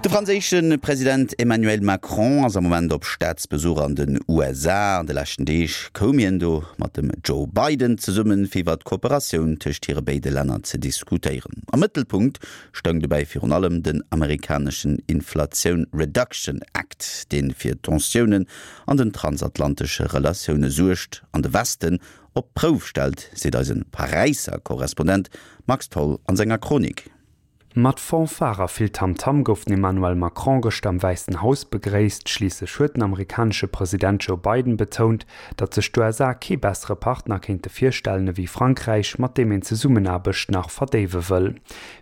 De franséische President Emmanuel Macron ass am Moment op Staatsbesuch an den USA. An de leschten Deeg koum hien do mat dem Joe Biden zesummen, fir iwwer d'Kooperatioun tëscht hire béide Länner ze diskutéieren. Am Mëttelpunkt stoung dobäi virun allem den amerikaneschen Inflation Reduction Act, dee fir Tensiounen an den transatlantesche Relatioune suergt an de Westen op d'Prouf stellt, seet eise Paräisser Korrespondent Max Tholl an senger Chronik. Mat Fanfare a vill Tamtam gouf den Emmanuel Macron gëschter am Wäissen Haus begréisst. Schliisslech huet den amerikanesche President Joe Biden betount, datt sech d'USA kee bessere Partner kéinte virstellen ewéi Frankräich, mat deem een d'Zesummenaarbecht nach verdéiwe wëll.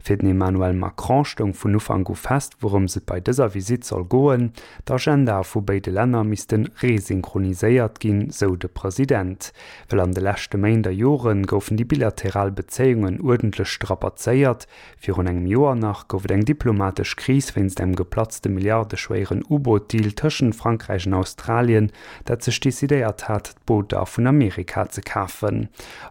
Fir den Emmanuel Macron stoung vun Ufank u fest, wourëms et bei dëser Visitt soll goen, D'Agendae vu béide Länner misste resynchroniséiert ginn, sou de President. Well an de leschte Méint a Jore goufen déi bilateral Bezéiungen uerdentlech strapazéiert. Virun engem Joer nach gouf et eng diplomatesch Kris wéinst engem geplatzte milliardeschwéieren U-Boot-Deal tëschent Frankräich an Australien, dat sech decidéiert hat, d'Booter vun Amerika ze kafen.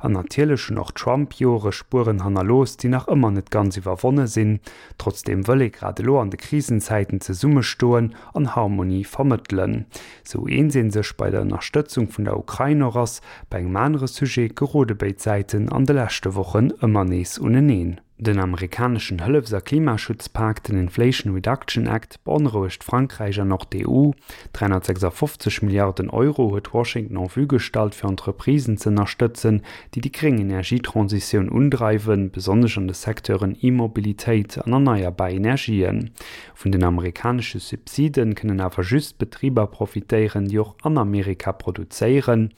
An natierlech hunn och d'Trump-Jore Spueren hannerlooss, déi nach ëmmer net ganz iwwerwonne sinn. Trotzdeem wëll ee grad elo an de Krisenzäiten zesummestoen an Harmonie vermëttelen. Sou eens ee sech bei der Ënnerstëtzung vun der Ukrain och ass, bei engem anere Sujet gerode béid Säiten an de leschte Wochen ëmmer nees uneneen. Den amerikaneschen Hëllefs a Klimaschutzpak, den Inflation Reduction Act, beonrouegt Frankräich an och d'EU. 356 Milliarden Euro huet Washington en vue gestallt, fir Entreprisen ze ënnerstëtzen, déi déi gréng Energietransitioun undreiwen, besonnesch an de Secteuren E-Mobilitéit an erneierbar Energien. Vun den amerikanesche Subsiden kënnen awer just Betriber profitéieren, déi och an Amerika produzéieren.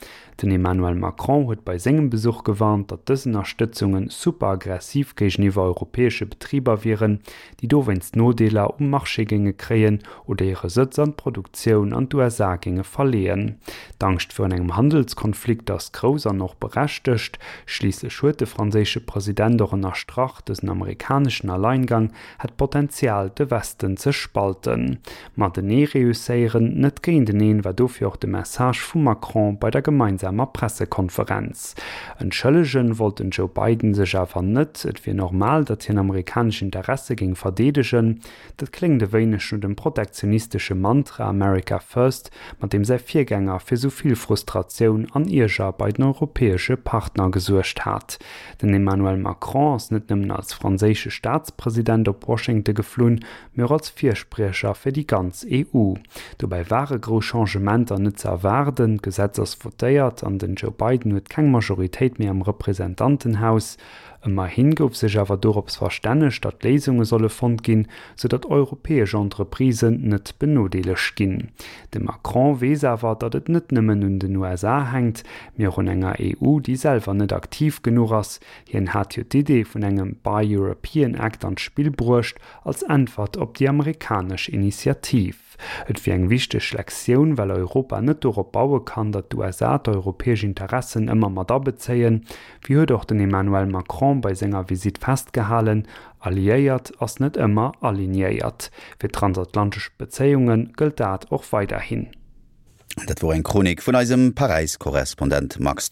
Den Emmanuel Macron huet bei sengem Besuch gewarnt, datt dës Ënnerstëtzunge super aggressiv géigeniwwer europäesche Betriber wieren, déi dowéinst Nodeeler um Marché géinge kréien oder hire Sëtz an d'Produktioun an d'USA géinge verleeën. D'Angscht virun engem Handelskonflikt ass grouss an och berechtegt. Schliisslech huet de franséische President och ënnerstrach, dësen amerikaneschen Alleingang hätt d'Potenzial, de Westen ze spalten. Matenee reusséieren, net géinteneen, war dofir och de Message vum Macron bei der gemeinsamer Pressekonferenz. Entschëllegen wollt den Joe Biden sech awer net. Et wier normal, datt hien amerikanesch Interesse géing verdeedegen. Dat kléngt e wéineg no dem protektionistesche Mantra America First, mat deem säi Virgänger fir sou vill Frustratioun an Ierger bei den europäesche Partner gesuergt hat. Den Emmanuel Macron ass net nëmmen als franséische Staatspresident op Washington geflunn, mee och als Firspriecher fir déi ganz EU. Dobäi ware grouss Changementer net ze erwaarden, d'Gesetz ass votéiert an den Joe Biden huet keng Majoritéit méi am Representantenhaus. Ëmmerhi gouf sech awer dorops verstännegt, datt Léisunge solle fonnt ginn, sou datt europäesch Entreprisen net benodeelegt ginn. De Macron weess awer, datt et net nëmmen un den USA hänkt, mee och un enger EU, déi selwer net aktiv genuch ass. Hien hat jo d'Idee vun engem Buy European Act an d'Spill bruecht, als Äntwert op déi amerikanesch Initiativ. Et wier eng wichteg Lektioun, well Europa net dorop baue kann, datt d'USA d'europäesch Interessen ëmmer mat abezéien. Wéi huet och den Emmanuel Macron bei senger Visitt festgehalen, Alliéiert ass net ëmmer alignéiert. Fir d'transatlantesch Bezéiunge gëllt dat och weiderhin. Dat wor eng Chronik vun eisem Paräis-Korrespondent Max Tholl.